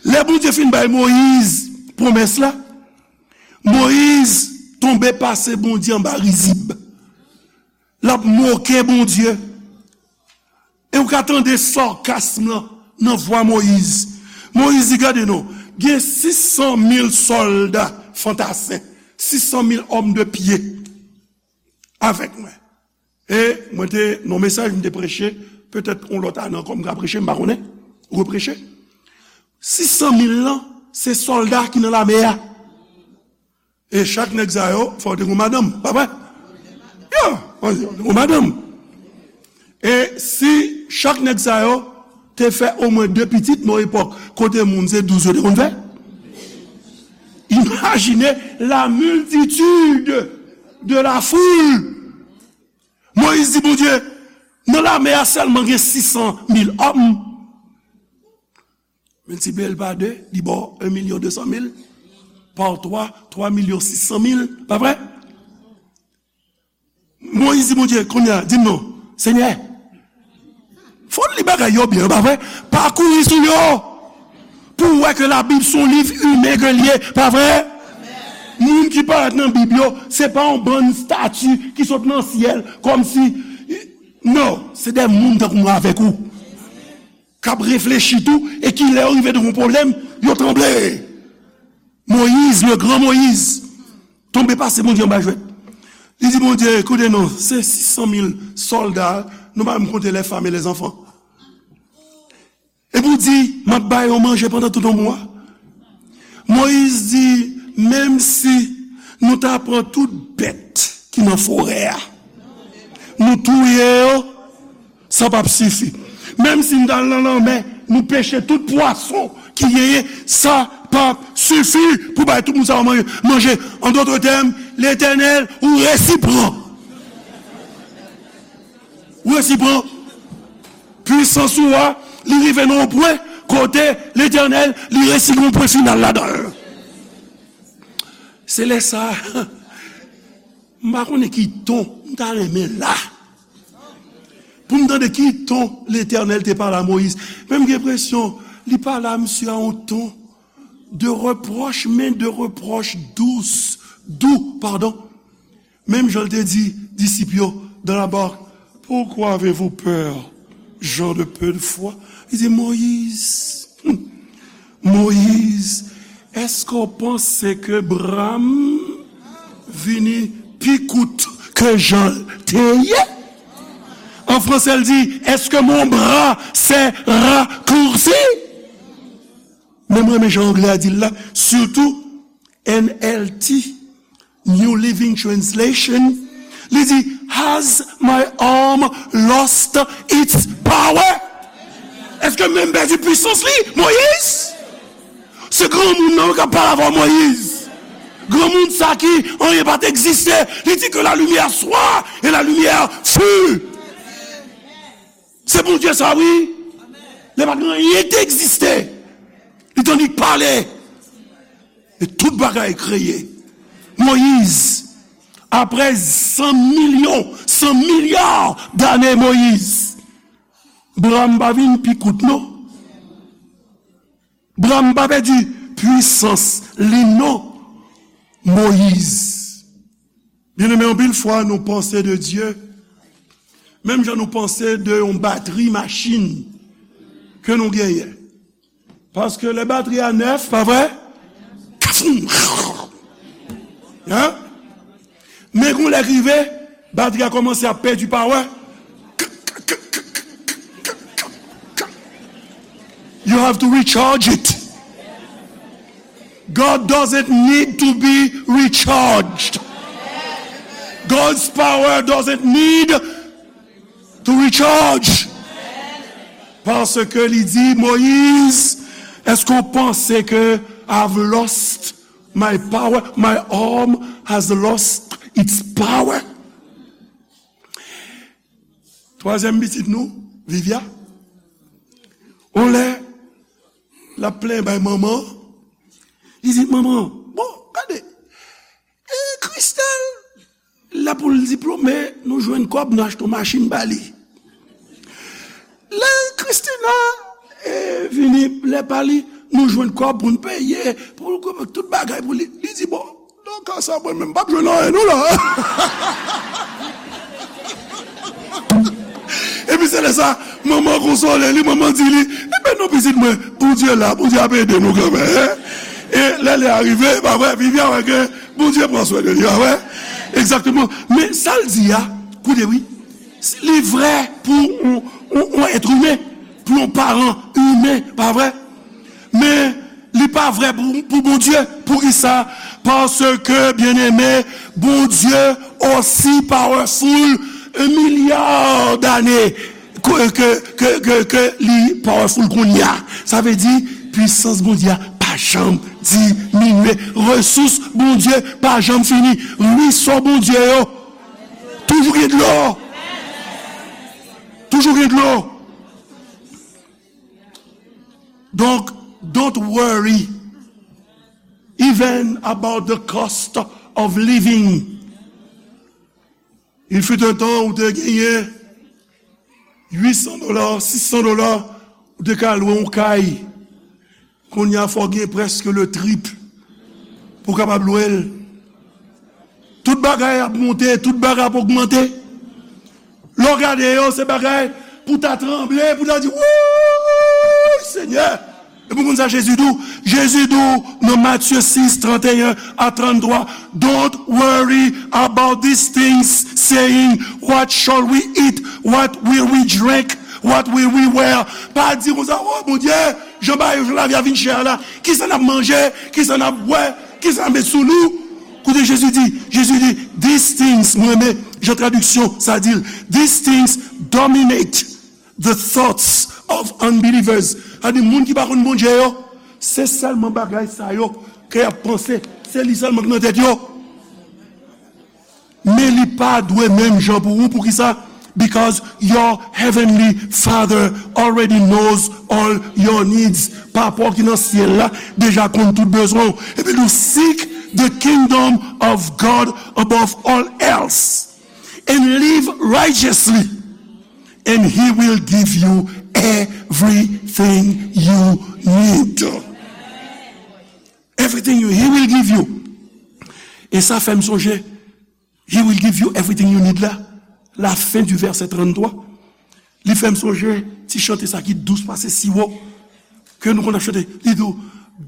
Lè Bondye fin bay Moyiz pwomès la, Moyiz tonbe pase Bondye anba rizib. L ap moke Bondye. E ou ka tande sarkasm lan nan vwa Moyiz. Moyiz di, gade non, gen sis san mil sòlda fantasen, sis san mil òm de pye avèk mwen. E mwen te, nan mesaj m te preche, petèt yon lòt ane ankò m ka preche, m pa konnen, repreche. Sis san mil lan, se sòlda ki nan lame a. E chak nèg sa yo, fò w te gon madanm, pa vre? Ya, fò w te gon madanm. E si chak nèg sa yo te fè omwen de pitit nan epòk kote moun se douz yo te konn fè, imajine la multitude de la foule. Moyiz di Bondye, nan lame a sèlman gen sis san mil òm. Miltipliye l pa de, li ba w en milyon de san mil. Pa twa, twa milyon sis san mil. Pa vre? Moyiz di Bondye, kounye a, di m non, Senyè, fò n li bagay yo byen, pa vre? Pa kouri sou yo. Pou w wè ke Labib se yon liv imen ke l ye, pa vre? Moun ki parèt nan Bib yo, se pa yon bann stati ki sot nan syèl, kòmsi, non, se de moun tankou mwen avèk ou k ap reflechi tou, e ki lè yo rive devan yon pwoblèm, yo tranble. Moyiz, le gran Moyiz, tonbe pase Bondye anba jwèt. Li di Bondye, koute non, se sis san mil sòlda, nou pa menm konte les femmes et les enfants. Epi w di, m ap ba yo manje pandan tout yon mwa. Moyiz di, menm si nou ta pran tout bèt ki nan forè a, nou touye yo, sa p ap sifi. Menm si n t al nan lanmè, nou peche tout pwason ki genyen, sa p ap sifi pou bay tout moun sa yo manje. An dòt tèm, Letènèl, ou resi pran. Ou resi pran. Pwisans ou a, li rive nan yon pwen kote Letènèl, li resi gen yon pwen final ladan l. Se lè sa a, m pa konnen ki ton m ta renmen la. Pou m tande ki ton Letènèl te pale a Moyiz. Men m gen enpresyon, li pale a misye a yon ton de repwòch, men de repwòch dous, dou, padon. Menm jan l te di disip yo dans la barque, pourquoi avez-vous peur, gens de peu de foi? Li di, Moyiz, Moyiz, èske w panse ke bra m vini pi kout ke jan l te ye? An franse, l di, est-ce que mon bras s'est raccourci? Men m renmen jan anglè a di l la, sitou N L T, New Living Translation, li di, has my arm lost its power? Èske men m pèdi pwisans li, Moyiz? Se granmoun nan wi k ap pale avè w, Moyiz. Granmoun sa ki anyen pa t egziste. Li di que la lumière soit et la lumière fut. Se Bondye sa wi. Lè pa t gen anyen ki te egziste, li t annik pale. E tout bagay kreye. Moyiz, apre san milyon, san milya dane Moyiz, bra m pa vin pi kout non. Bra m pa pèdi pwisans li non, Moyiz. Byeneme, anpil fwa nou panse de Dye menm jan nou panse de yon batri machin ke nou genyen. Paske lè batri a nèf, pa vre? Kafoum! Hein? Men gon lè k rive, batri a kòmanse ap pèdi pawè. You have to recharge it. God doesn't need to be recharged. God's power doesn't need to recharge. Paske li di, Moyiz, èske w panse ke I've lost my power? My arm has lost its power. Twazyèm pitit nou, Vivia, on lè l ap plenyen bay manman, li di, manman, bon, gade, e Christelle, la pou l diplome, nou jwenn kòb, nou achte yon machin ba li. Lè Christina, e, vini, lè pa li, nou jwenn kòb pou n peye, pou l, tout bagay pou li. Li di, bon, nan ka sa, mwen menm, m p ap jwenn anyen non la. Epi se lè sa, manman konsole li, manman di li, enben non pitit mwen, Bondye la, Bondye ap ede nou kanmenm. E lè lè a rive, pa vre, Vivia wè ke Bondye pran swen de li, pa vre? Egzakteman. Men sa l di a, koute wi, li vrè pou yon, yon, yon èt imen, pou yon paran imen, pa vre? Men li pa vrè pou, pou Bondye. Poukisa? Paske, byeneme, Bondye osi powerful, un milliard dane ke, ke, ke, ke li powerful kounye a. Sa vle di, pwisans Bondye a pa janm diminye. Resous Bondye pa janm fini. Rwisò Bondye yo toujou gen dlo. Toujou gen dlo. Donk, don't worry even about the cost of living. Il fut un temps ou te genyen uit san dola, sis san dola, ou te ka lwe yon kay. Kounye a, fò w gen prèske le triple pou w kapab lwe l. Tout bagay ap monte, tout bagay ap ogmante. Lè w gade yo, se bagay pou w ta tranble, pou w ta di, "Wouy, Senyè!" Epi w konn sa Jezi di w? Jezi di w nan Matye sis, trannteyen a tranntwa, "Don't worry about these things, saying, 'What shall we eat? What will we drink? What will we wear?'" Pa di konsa, "O Bondye, jan bagay, jan lavi a vin chè a la, kisa n ap manje, kisa n ap bwè, kisa n ap met sou nou?" Koute Jezi di, Jezi di, "These things," mwen renmen jan tradiksyon sa di l, "these things dominate the thoughts of unbelievers." Sa di moun ki pa konn Bondye yo, se sèlman bagay sa yo ke y ap panse, se li sèlman ki nan tèt yo. Men li pa dwe menm jan pou ou. Poukisa? Because your heavenly Father already knows all your needs. Papa w ki nan syèl la deja konn tout bezwen w. Epi nou, "Seek the kingdom of God above all else and live righteously, and he will give you everything you need." Everything you, he will give you. E sa fè m sonje, "He will give you everything you need" la, la fin du verset trannntwa. Li fè m sonje ti chante sa ki dous pase siwo, ke nou konn ap chante. Li di w,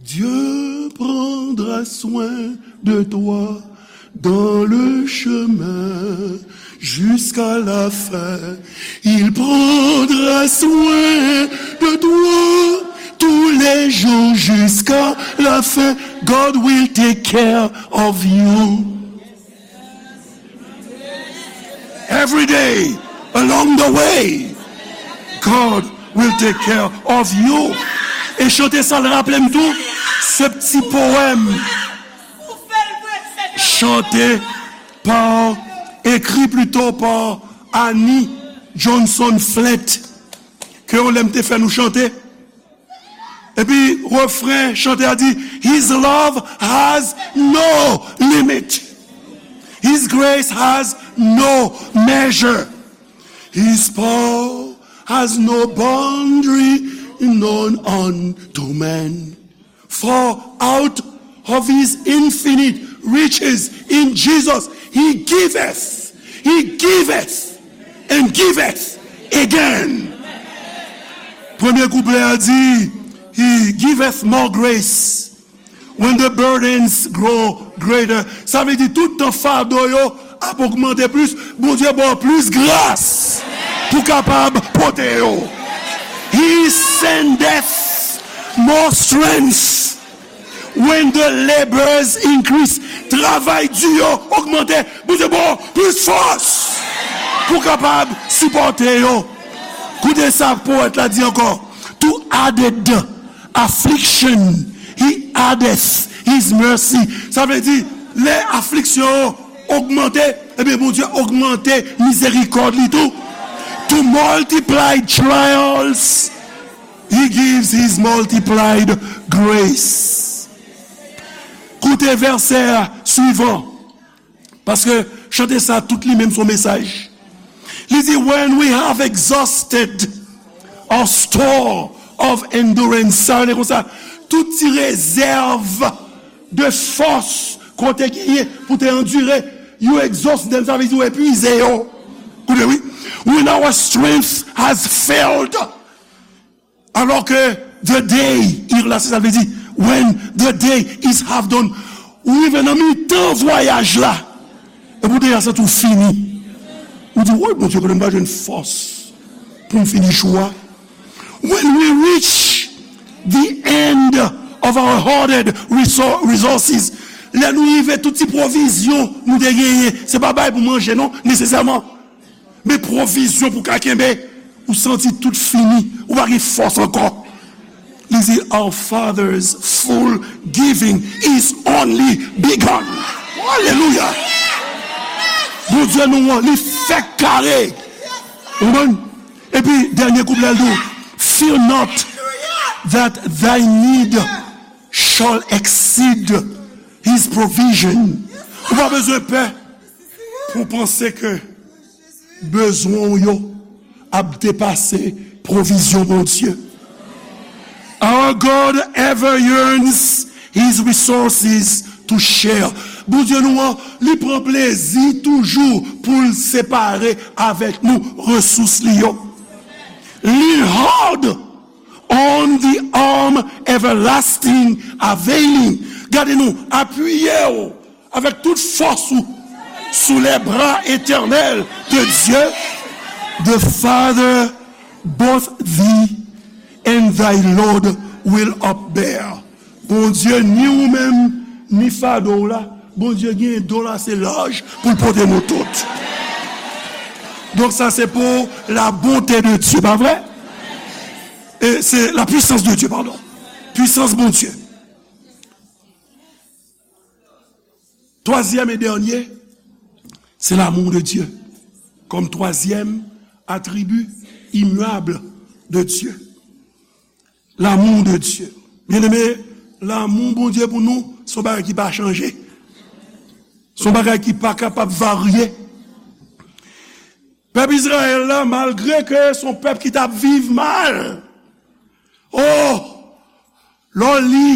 "Dieu prendra soin de toi dans le chemin jusqu'à la fin. Il prendra soin de toi tous les jours jusqu'à la fin. God will take care of you." Every day along the way, God will take care of you. E chante sa l raple m tou, se ti powèm chante pa, ekri plito pa Annie Johnson Flint, ke yon lè m te fè nou chante. Epi refren chante a di, "His love has no limit. His grace has no measure. His power has no boundary known unto man. For out of his infinite riches in Jesus, he giveth, he giveth, and giveth again." Premye kouplè a di, "He giveth more grace when the burdens grow greater." Sa vle di, tout tan fado yo ap ogmante plis, Bondye ba w plis gras pou kapab pote yo. "He sendeth more strength when the labors increase." Travay di yo ogmante, Bondye ba w plis fòs pou kapab sipòte yo. Koute sa powèt la di ankò, "To added affliction, he addeth his mercy." Sa vle di, lè afliksyon yo ogmante, ebyen, Bondye ogmante mizerikòd li tou. "To multiplied trials, he gives his multiplied grace." Koute vèsè swivan, paske chante sa, tout li menm se yon mesaj. Li di, "When we have exhausted our store of endurance," sa vle di konsa, tout ti rezèv de fòs ke w te genyen pou te andire, you exhaust them, sa vle di w epuize yo. Koute, wi. "When our strength has failed," alò ke the day, ir la, se sa l vle di, "when the day is half done," ou rive nan mitan vwayaj la, epi w deja santi w fini. Ou di, "Woy, Bondye, konnen m pa jwenn fòs pou m fini jou a." "When we reach the end of our hoarded resou-, resources," lè nou rive tout ti pwovizyon nou te genyen, se pa bay pou manje non, nesesèman, men pwovizyon pou ka kenbe. Ou santi tout fini, ou pa gen fòs ankò. Li di, "Our Father's full giving is only begun." Alelouya! Bondye nou an, li fèk kare. Ou konprann? Epi, dènye kouplet la, l di, "Fear not that thy need shall exceed his provision." Ou pa bezwen pè pou w panse ke bezwen w yo ap depase pwovizyon Bondye. Our God ever yearns his resources to share. Bondye nou an, li pran plezi toujou pou l separe avèk nou resous li yo. Lean hard on the arm everlasting availing. Gade nou, apiye w avèk tout fòs ou sous les bras éternels de Dieu. The Father both thee and thy load will upbear. Bondye, ni ou menm, ni fado w la, Bondye gen do l ase laj pou l pote nou tout. Donk sa se pou la bonté de Dieu, pa vre? E se la puissance de Dieu, pardon. Pwisans Bondye. Twazyèm e dènye, se l'amour de Dieu. Kòm twazyèm atribi immuable de Dieu. L'amour de Dieu. Byeneme, lanmou Bondye pou nou, se yon bagay ki pa chanje. Se yon bagay ki pa kapab varye. Pèp Izrayèl la, malgre ke se yon pèp ki t ap viv mal, oh, lè w li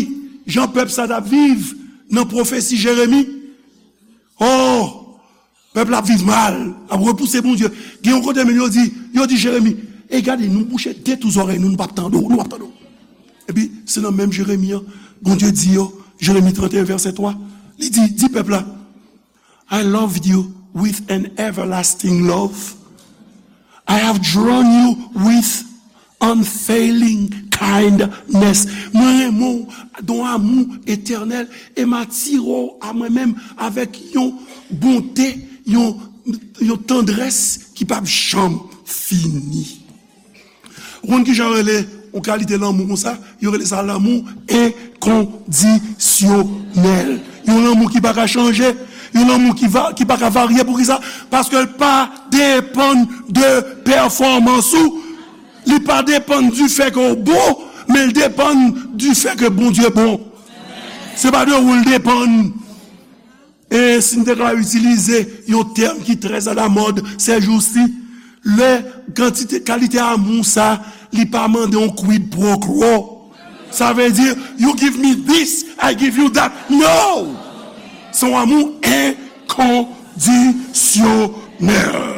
jan pèp sa t ap viv nan pwofesi Jeremi, oh, pèp la ap viv mal, ap repouse Bondye. Gen yon kote menm yo di, yo di Jeremi, "E gade, nou bouche de tou zòrèy nou, nou p ap tande w, nou p ap tande w." Epi, se nan menm Jeremi an, Bondye di yo, Jeremi trannteyen, vèsè twa, li di, di pèp la, "I loved you with an everlasting love. I have drawn you with unfailing kindness." Mwen renmen w don amou etènèl e m atire w a mwen menm avèk yon bonte, yon, yon tandrès ki p ap janm fini. Ou konn kijan yo rele yon kalite lanmou konsa? Yo rele sa lanmou enkondisyonèl. Yon lanmou ki pa ka chanje, yon lanmou ki va, ki pa ka varye. Poukisa? Paske l pa depann de pèfòmans ou. Li pa depann du fait ke w bon, men l depann du fait ke Bondye bon. Se pa de ou l depann. E si n te ka itilize yon tèm ki trè alamòd sèjousi, lè kantite, kalite amou sa, li pa mande yon quid pro quo. Sa vle di, "You give me this, I give you that." No! Se yon amou enkondisyonèl.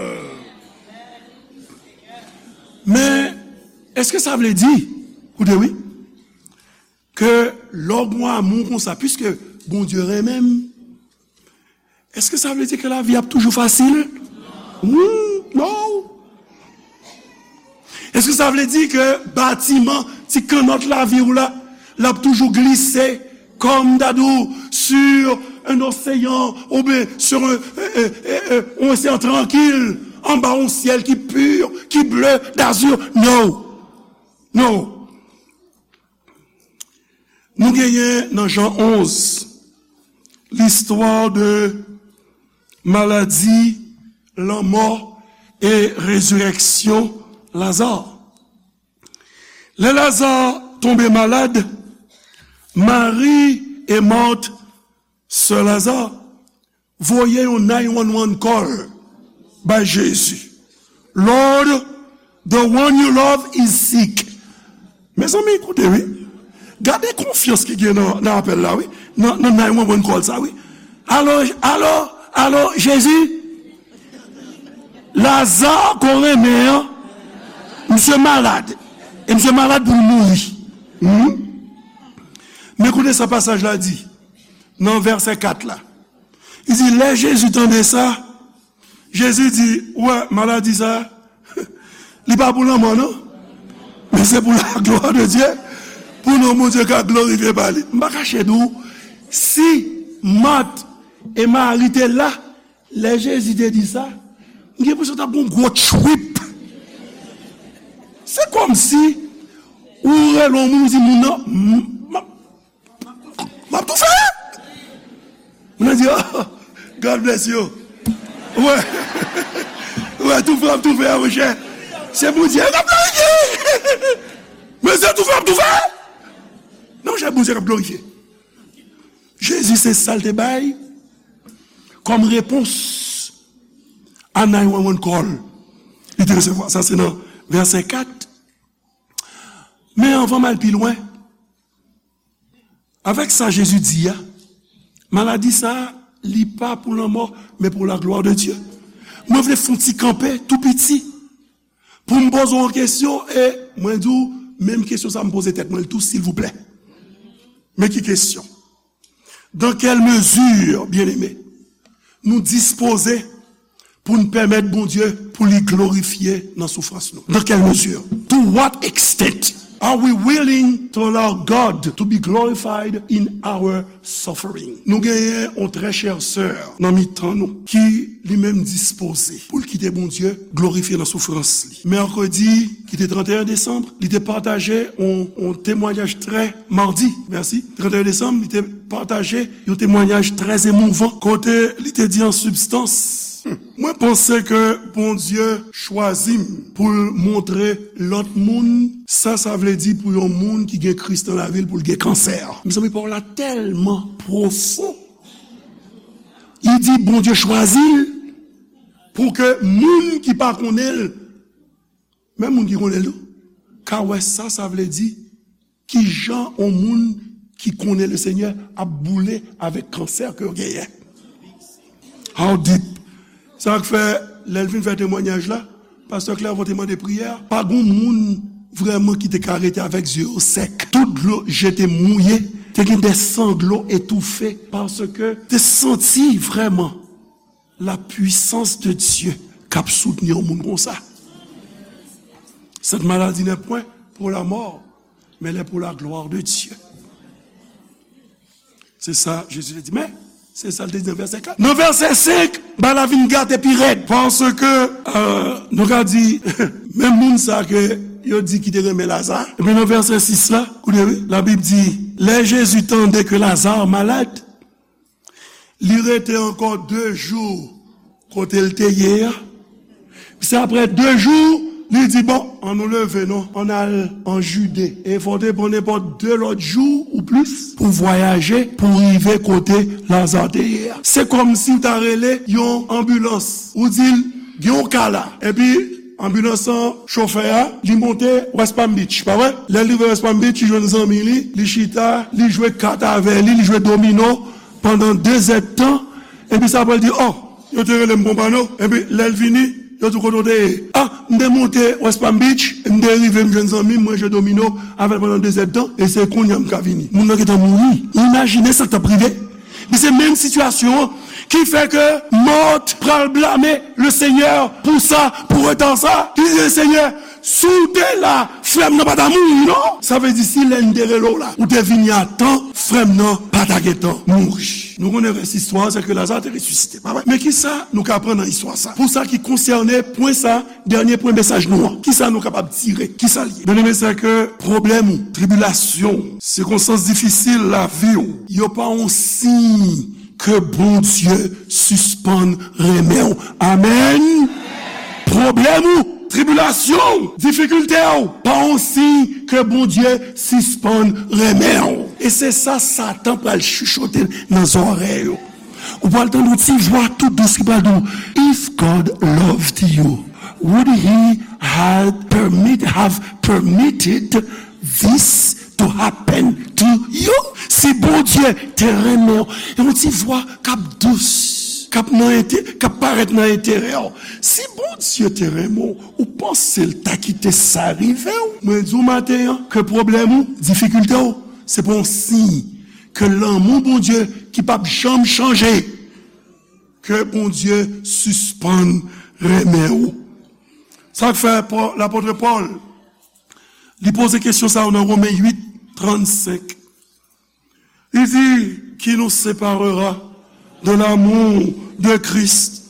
Men, èske sa vle di, koute wi, ke lè w gen yon amou konsa, piske Bondye renmen m, èske sa vle di ke lavi ap toujou fasil? Hmm, non. Èske sa vle di ke batiman, ti kannòt lavi w la, l ap toujou glise, kòm m ta di w, sur un océan, oubyen sur un, euh, euh, euh, euh, un océan tranquille, anba yon syèl ki pi, ki bleu d'azur? Non. Non. Nou genyen nan Jan onz, l'histoire de maladie, lanmò e rezirèksyon Laza. Lè Laza tonbe malad, Mari e Mat, sè Laza, voye yon nine one one call bay Jezi. "Lord, the one you love is sick." Mezanmi, koute wi. Gade konfyans ki gen nan, nan apèl la wi. Nan, nan nine one one call sa wi. "Alo, alo, alo, Jezi? Laza ke w renmen an, misye malad. E misye malad pou l mouri." Hmm? Men koute sa pasaj la di nan vèsè kat la. Li di, lè Jezi tande sa, Jezi di, ou wè, maladi sa, li pa pou lanmò, non. Men se pou la gloire de Dieu, pou non Bondye ka glorifye pa li. M pa kache di w, si Mat e Mari te la, lè Jezi te di sa, m gen enpresyon t ap gen yon gwo trip. Kòmsi ou rele yon moun, ou di moun nan, "M, m, m ap toufe." Moun nan di, "Oh, God bless you." Wè. Wè, toufe, ap toufe a, monchè. Se Bondye k ap glorifye. Men se toufe, ap toufe. Non, monchè, Bondye k ap glorifye. Jezi, se sa l te bay kòm repons a nine one one call. Li te resevwa sa, se nan vèsè kat. Men anvan m al pi lwen, avèk sa Jezi di a, maladi sa a, li pa pou lanmò, men pou la glwa de Dye. Mwen vle fè yon ti kanpe tou piti pou m poze w yon kesyon, e mwen di w, menm kesyon sa a m poze tèt mwen tou, silvouplè. Men ki kesyon? Dans quelle mesure, bien-aimé, nou dispoze pou n pèmèt Bondye pou li glorifye nan soufrans nou? Dans quelle mesure? To what extent are we willing to allow God to be glorified in our suffering? Nou genyen yon trè chè sè nan mitan nou ki li menm dispoze pou l kite Bondye glorifye nan soufrans li. Mèkredi, ki te trannteyen desanm, li te pataje yon, yon temwayaj trè, madi, mèsi, trannteyen desanm, li te pataje yon temwayaj trè emouvan, kote li te di an sibstans, "Mwen panse ke Bondye chwazi m pou l montre lòt moun sa sa vle di pou yon moun ki gen Kris nan lavi l pou l gen kansè." Mezanmi, pawòl la tèlman pwofon. Li di Bondye chwazi l pou ke moun ki pa konnen l, menm moun ki konnen l tou, ka wè sa sa vle di, ki jan yon moun ki konnen Lesenyè ap boule avèk kansè ke yo genyen. How deep? Sa k fè, lè l fin fè temwayaj la, pastè Clervaux te mande priyè, pa gon moun vrèman ki te ka rete avèk zye yo sèk. Tout dlo je te mouye, te gen de sanglo etoufe, paske te santi vrèman la puissance de Dieu k ap soutni yon moun konsa. Cette maladie n'est point pour la mort, mais elle est pour la gloire de Dieu. Se sa Jezi te di. Men, se sa l te di nan vèsè kat. Nan vèsè senk, bagay la vin gate pi rèd. Paske, euh, nou ka di, menm moun sa ke yo di ki te renmen Laza. Epi nan vèsè sis la, koute wi, Labib di, lè Jezi tande ke Laza malad, li rete ankò de jou kote l te ye a. Se apre de jou, li di, "Bon, ann nou leve non, ann al an Jide." E fò w te pran nenpòt de lòt jou ou plis pou vwayaje, pou rive kote Laza te ye a. Se kòmsi w ta rele yon anbilans, ou di l, "Gen yon ka la." Epi anbilans lan, chofè a, li monte West Palm Beach, pa vre? Lè l rive West Palm Beach, li jwenn zanmi li, li chita, li jwe kat avè li, li jwe domino pandan de zèdtan. Epi sa apre l di, "Oh, yo te rele m Pompano." Epi lè l vini, yo di, "Kote w te ye?" "Ah, m te monte West Palm Beach, m te rive, m jwenn zanmi m, mwen jwe domino avè l pandan de zèdtan, e se kounye a m ka vini." Moun nan gentan mouri. Ou imajine sa k t ap rive? Men se menm sitiyasyon an ki fè ke Mart pral blame Lesenyè pou sa, pou reta sa. Li di, "Lesenyè, si w te la, frè m nan pa ta mouri non." Sa vle di, si lè n te rele w la, ou te vini a tan, frè m nan pa ta gentan mouri. Nou konnen rès istwa a, se ke Laza te resisite, pa vre? Men kisa nou ka aprann nan istwa sa? Pou sa ki konsène pwen sa, dènye pwen mesaj nou an, kisa nou kapab tire? Kisa l ye? Byeneme, se ke pwoblèm ou, tribilasyon ou, sikonstans difisil lavi w, yo pa yon siy ke Bondye sispann renmen w. Amèn. Pwoblèm ou, tribilasyon ou, difikilte w, pa yon siy ke Bondye sispann renmen w. E se sa Satan pral chichote nan zòrèy ou. Ou pral tande yon ti vwa tou dous ki pral di w, "If God loved you, would he had permit, have permitted this to happen to you?" Si Bondye te renmen w, e yon ti vwa k ap dous, k ap nan ente-, k ap parèt nan enterè w. Si Bondye te renmen w, ou panse l ta kite sa rive w? Mwen di w maten an ke pwoblèm ou, difikilte w, se pa yon siy ke lanmou Bondye ki p ap janm chanje, ke Bondye sispann renmen w. Sa k fè Pò-, lapòt Pòl, li poze kesyon sa yo nan Women uit, trannsenk. Li di, "Qui nous séparera de l'amour de Christ?"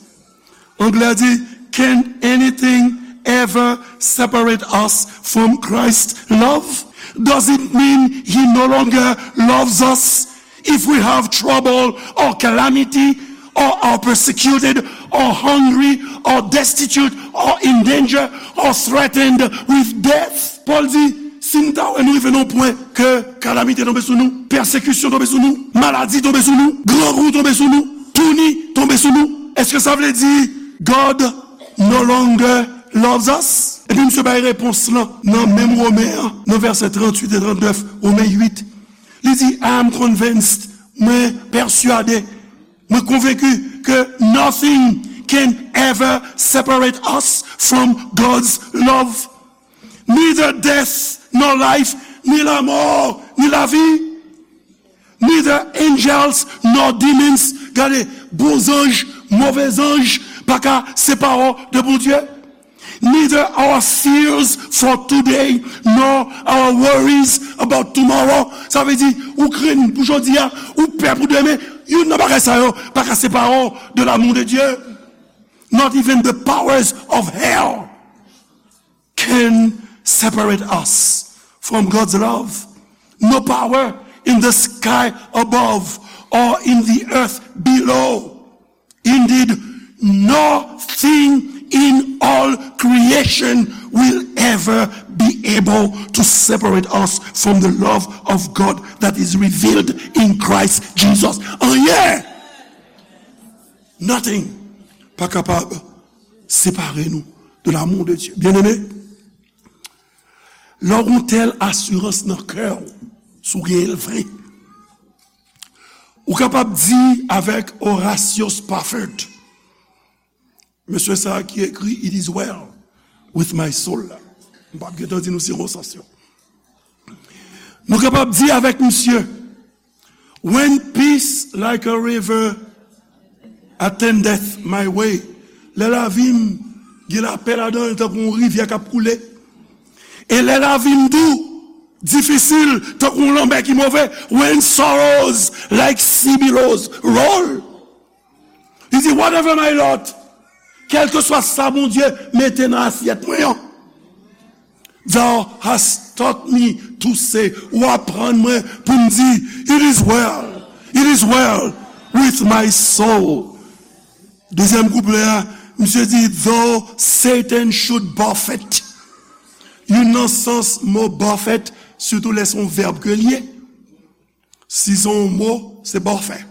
Anglè di, "Can anything ever separate us from Christ's love? Does it mean he no longer loves us if we have trouble or calamity or are persecuted or hungry or destitute or in danger or threatened with death? Pòl di, si n ta wè nou rive nan yon pwen ke kalamite tonbe sou nou, pèsekisyon tonbe sou nou, maladi tonbe sou nou, grangou tonbe sou nou, touni tonbe sou nou, èske sa vle di God no longer loves us? Epi misye bay repons lan nan menm Women an, nan vèsè tranntuit e trannèf, Women uit. Li di, I am convinced, mwen pèsyade, mwen konvenki ke nothing can ever separate us from God's love. Neither death nor life, ni lanmò, ni lavi. Neither angels nor demons. Gade, bon zanj, move zanj pa ka separe w de Bondye. Neither our fears for today nor our worries about tomorrow. Sa vle di, ou krenn pou jodi a, ou pè pou demen, youn nan bagay sa yo pa ka separe w de l'amour de Dieu. Not even the powers of hell can separate us from God's love. No power in the sky above or in the earth below. Indeed, nothing in all creation will ever be able to separate us from the love of God that is revealed in Christ Jesus. Anyen! Nothing pa kapab separe nou de l'amour de Dieu. Byeneme, lè w gen yon tèl asirans nan kè w, si w genyen l vre, ou kapab di avèk Horatio Spafford, mesye sa a ki ekri It is well with my soul la. M p ap gentan di nou sirkonsans yo. Nou kapab di avèk misye, When peace like a river attendeth my way, lè lavi m gen lapè ladan l tankou yon rivyè k ap koule, e lè lavi m dou, difisil, tankou yon lanmè ki move, when sorrows like sea billows roll, li di, whatever my lot, kèlkeswa sa Bondye mete nan asyèt mwen an, Thou hast taught me to say, ou aprann mwen pou m di, it is well, it is well with my soul. Dezyèm kouplè a, misye di, though Satan should buffet. Youn nan sans mo buffet, sitou lè se yon vèb ke l ye. Si se yon mo, se buffet.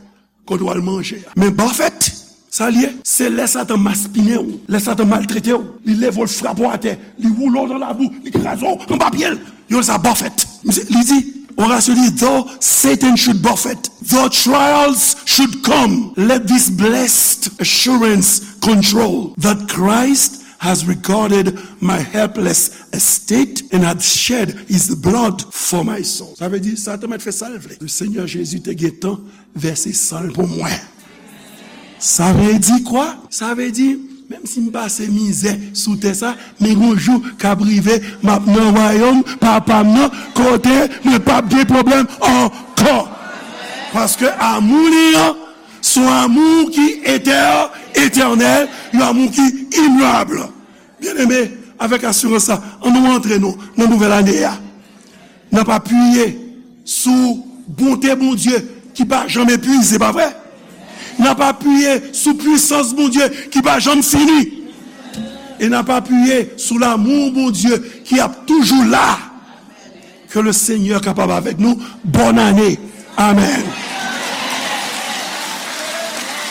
Kote w al manje a. Men buffet, sa l ye? Se lè Satan maspinen w, lè Satan maltrete w, li leve w, l frape w atè, li woule w nan labou, li kraze w anba pye l. Yo rele sa buffet. Misye, li di, Horatio di, though Satan should buffet, though trials should come, let this blessed assurance control that Christ has regarded my helpless estate and had shed his blood for my soul. Sa vle di, Satan mèt fè sa l vle. Le Seigneur Jésus te gentan vèse san l pou mwen. Sa vle di kwa? Sa vle di, menm si m pase mizè sou tè sa, men gon jou k ap rive, m ap nan wayòm Papa m nan, kote mwen p ap gen pwoblèm ankò. Paske amou li an, se yon amou ki etè, etènèl, yon amou ki imyab. Byeneme, avèk asirans sa, ann nou antre nou nan nouvèl ane a. N ap apiye sou bonte Bondye ki pa janm epuize, pa vre? N ap apiye sou pwisans Bondye ki pa janm fini. E n ap apiye sou lanmou Bondye ki ap toujou la. Ke le Senyè kapab avèk nou. Bòn ane. Amèn.